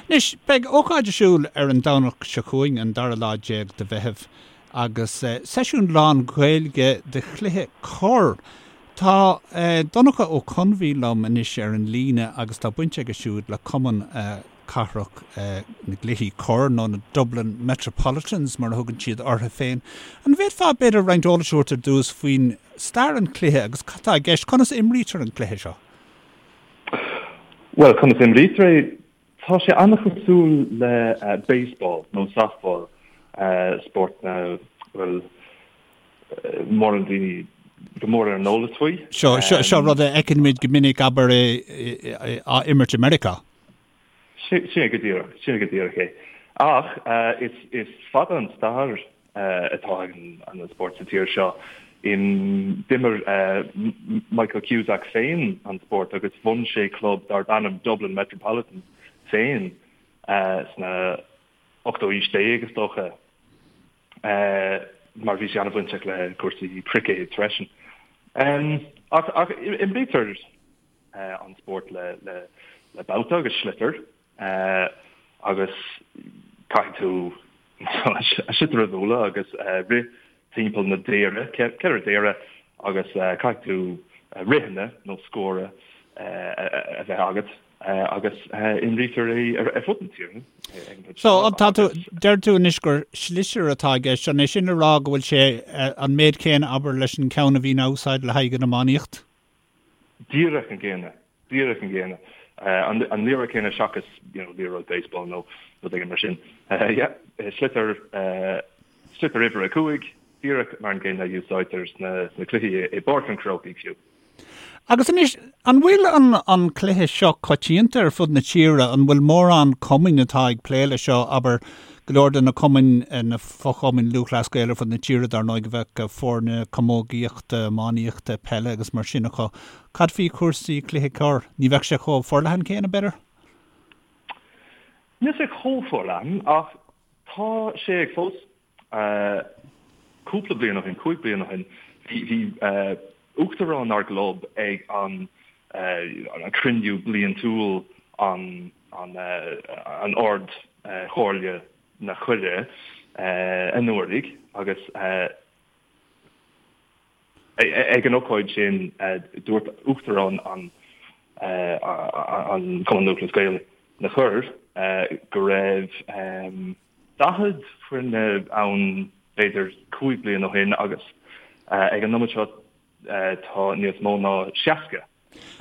Anois, beidh ócáid ar siúl ar an Domhnach seo chugainn, an dara lá déag de Mheitheamh, agus seisiún lán-Ghaeilge de chluiche corr. Tá Donncha Ó Conbhí liom anois ar an líne agus tá baint aige siúd le Cumann Cathrach na gCluichí Corr, nó na Dublin Metropolitans mar a thugann siad orthu féin. An bhféadfá b'fhéidir roinnt eolais a thabhairt ar dtús faoin stair an chluiche agus cad tá i gceist, conas a imrítear an cluiche seo? Bhuel, conas a imrítear é? Tá sé an-chosúil le baseball nó softball, spórt nach bhfuil mórán daoine go mór ar an eolas faoi. Seo, seo rud a fheiceann muid go minic, abair, á imirt i Meiriceá. Sin é go díreach, sin é go díreach é. Ach is fada an stair atá ag an spórt sa tír seo. D'imir Michael Cusack féin an spórt agus bhun sé club darb ainm Dublin Metropolitans féin sna ochtú aois déag, is dócha, mar bhí sé an-bhainteach le cúrsaí cruicéid freisin. Ach imrítear an spórt le bata agus sliotar. Agus caithfidh tú an sliotar a bhualadh agus rith timpeall na daoire, 4 daoire, agus caithfidh tú ritheanna nó scór a bheith agat agus imrítear é ar fud na tíre. So, tá tú, deir tú anois gur sliotar atá i gceist, an é sin le rá go bhfuil sé an méid céanna, abair, leis an ceann a bhíonn á úsáid le haghaidh an iománaíocht? Díreach an gcéanna. Díreach an gcéanna. An liathróid céanna seachas, you know, liathróid baseball nó rud éigin mar sin. Yeah, sliotar, sliotar uimhir a 5, díreach mar an gcéanna a úsáidtear sna, sna cluichí i bPáirc an Chrócaigh fiú. Agus anois, an bhfuil an, an cluiche seo coitianta ar fud na tíre? An bhfuil mórán cumainn atá ag plé leis seo, abair, go leor de na cumainn, na fochumainn Lúthchleas Gael ar fud na tíre, dar ndóigh, a bheadh foirne camógaíochta, iománaíochta, peile agus mar sin acu. Cad faoi chúrsaí cluiche corr? Ní bheadh sé chomh forleathan céanna, b'fhéidir? Níl sé chomh forleathan ach tá sé ag fás. Cúpla bliain ó shin, 5 bliana ó shin, bhí uachtarán ár gclub ag an cruinniú bliantúil an an Ard Chomhairle na Coirre anuraidh agus Ag an ócáid sin, dúirt Uachtarán an Chumann Lúthchleas Gael na Corr go raibh 40 foirne ann b'fhéidir 5 bliana ó shin agus ag an nóiméad seo tá níos mó ná 60.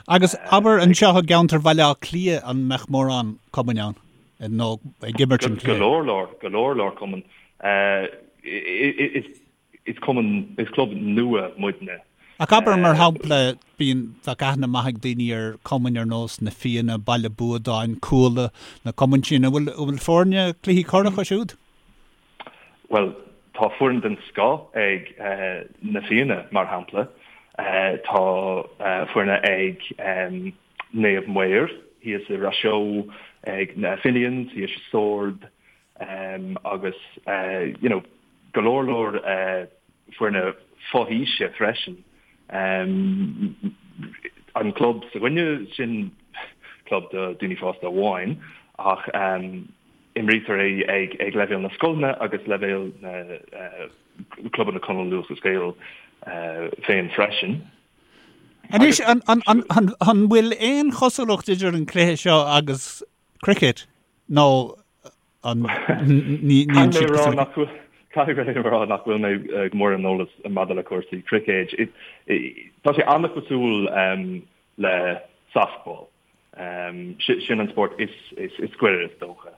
Agus abair anseo i gceantar Bhaile Átha Cliath an mbeadh mórán cumainn ann nó ag imirt an chluiche? Go leor leor, go leor leor cumann. Is Is cumann, is club nua muidne. Ach abair, mar shampla, bíonn, bheadh aithne maith ag daoine ar cumainn ar nós Na Fianna, Baile Buadáin, Cuala, na cumainn sin. An bhfuil, an bhfuil foirne cluichí corr acu siúd? Bhuel, tá foireann den scoth ag Na Fianna, mar shampla. Tá foirne ag Naomh Maor thíos i Ros Eo, ag na Finians thíos i Sord, agus you know, go leor leor foirne fo-aoise freisin. An club s'againne, sin club do daoine fásta amháin ach imrítear é ag leibhéal na scoileanna agus leibhéal na clubanna Cumann Lúthchleas Gael féin freisin. Anois, an bhfuil aon chosúlacht idir an cluiche seo agus cricket nó an ní níl siad cosúil le chéile? Caithfidh mé a rá nach bhfuil mé go mór ar an eolas maidir le cúrsaí cruicéid. Tá sé an-chosúil le softball. Sin an spórt is gaire is dócha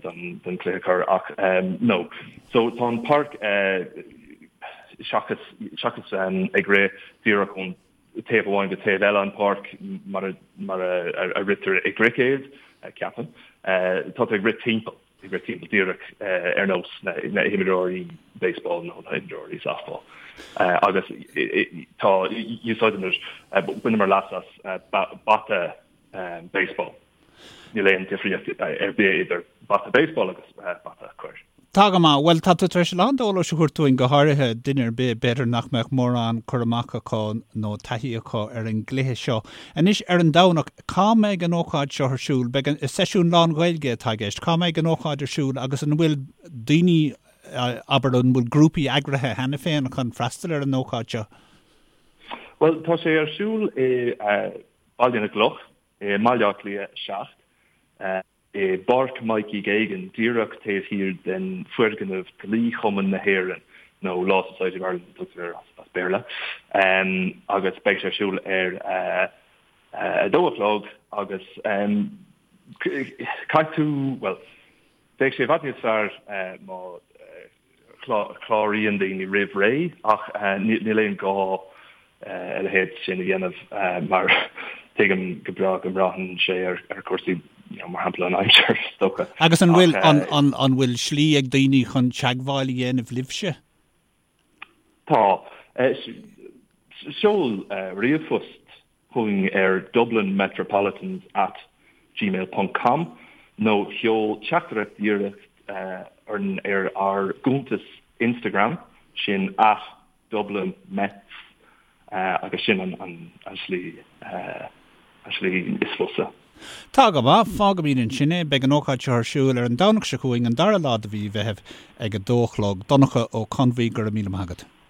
don chluiche corr ach no. So tá an páirc seachas seachas ag rith díreach ón taobh amháin go taobh eile an pháirc mar a mar a ritear i gcruicéad, ceapaim. Tá tú ag rith timpeall, ag rith timpeall díreach ar nós na himreoirí baseball nó na himreoirí softball. Agus tá, úsáideann, baineamar leas as bata baseball. Níl aon difríocht ar bith idir bata baseball agus bata corr. Tá go maith. Bhuel, tá tú tar éis a lán d'eolais a thabhairt dúinn, go háirithe duine ar bith, b'fhéidir nach mbeadh mórán cur amach acu nó taithí acu ar an gcluiche seo. Anois, ar an Domhnach, cá mbeidh an ócáid seo ar siúl? Beidh an, seisiún lán-Ghaeilge atá i gceist. Cá mbeidh an ócáid ar siúl agus an bhfuil daoine, abair, an bhfuil grúpaí eagraithe cheana féin chun freastal ar an ócáid seo? Bhuel, tá sé ar siúl i Baile na gCloch, i mBaile Átha Cliath 7. i bPáirc Mikey Geoghegan, díreach taobh thiar den foirgneamh Dlí-Chumann na hÉireann, nó Law Society of Ireland a tugtar air as Béarla, agus beidh sé ar siúl ar a dó a chlog agus caithfidh tú, bhuel, bheadh sé i bhfad níos fearr má chláraíonn daoine roimh ré ach níl aon gá a leithéid sin a dhéanamh mar tuigim go breá go mbraitheann sé ar chúrsaí mar shampla an aimsir is dócha. Agus an bhfuil an bhfuil slí ag daoine chun teagmháil a dhéanamh libhse? Tá. Seol ríomhphost chugainn ar dublinmetropolitans at gmail ponc com nó seol teachtaireacht dhíreach orainn ar ár gcuntas Instagram, sin at dublinmets agus sin an slí an slí is fusa. Tá go maith, fágfaimid ansin é. Beidh an ócáid seo ar siúl ar an Domhnach seo chugainn, an dara lá de mhí Mheithimh ag a dó a chlog. Donncha Ó Conbhuí, go raibh míle maith agat.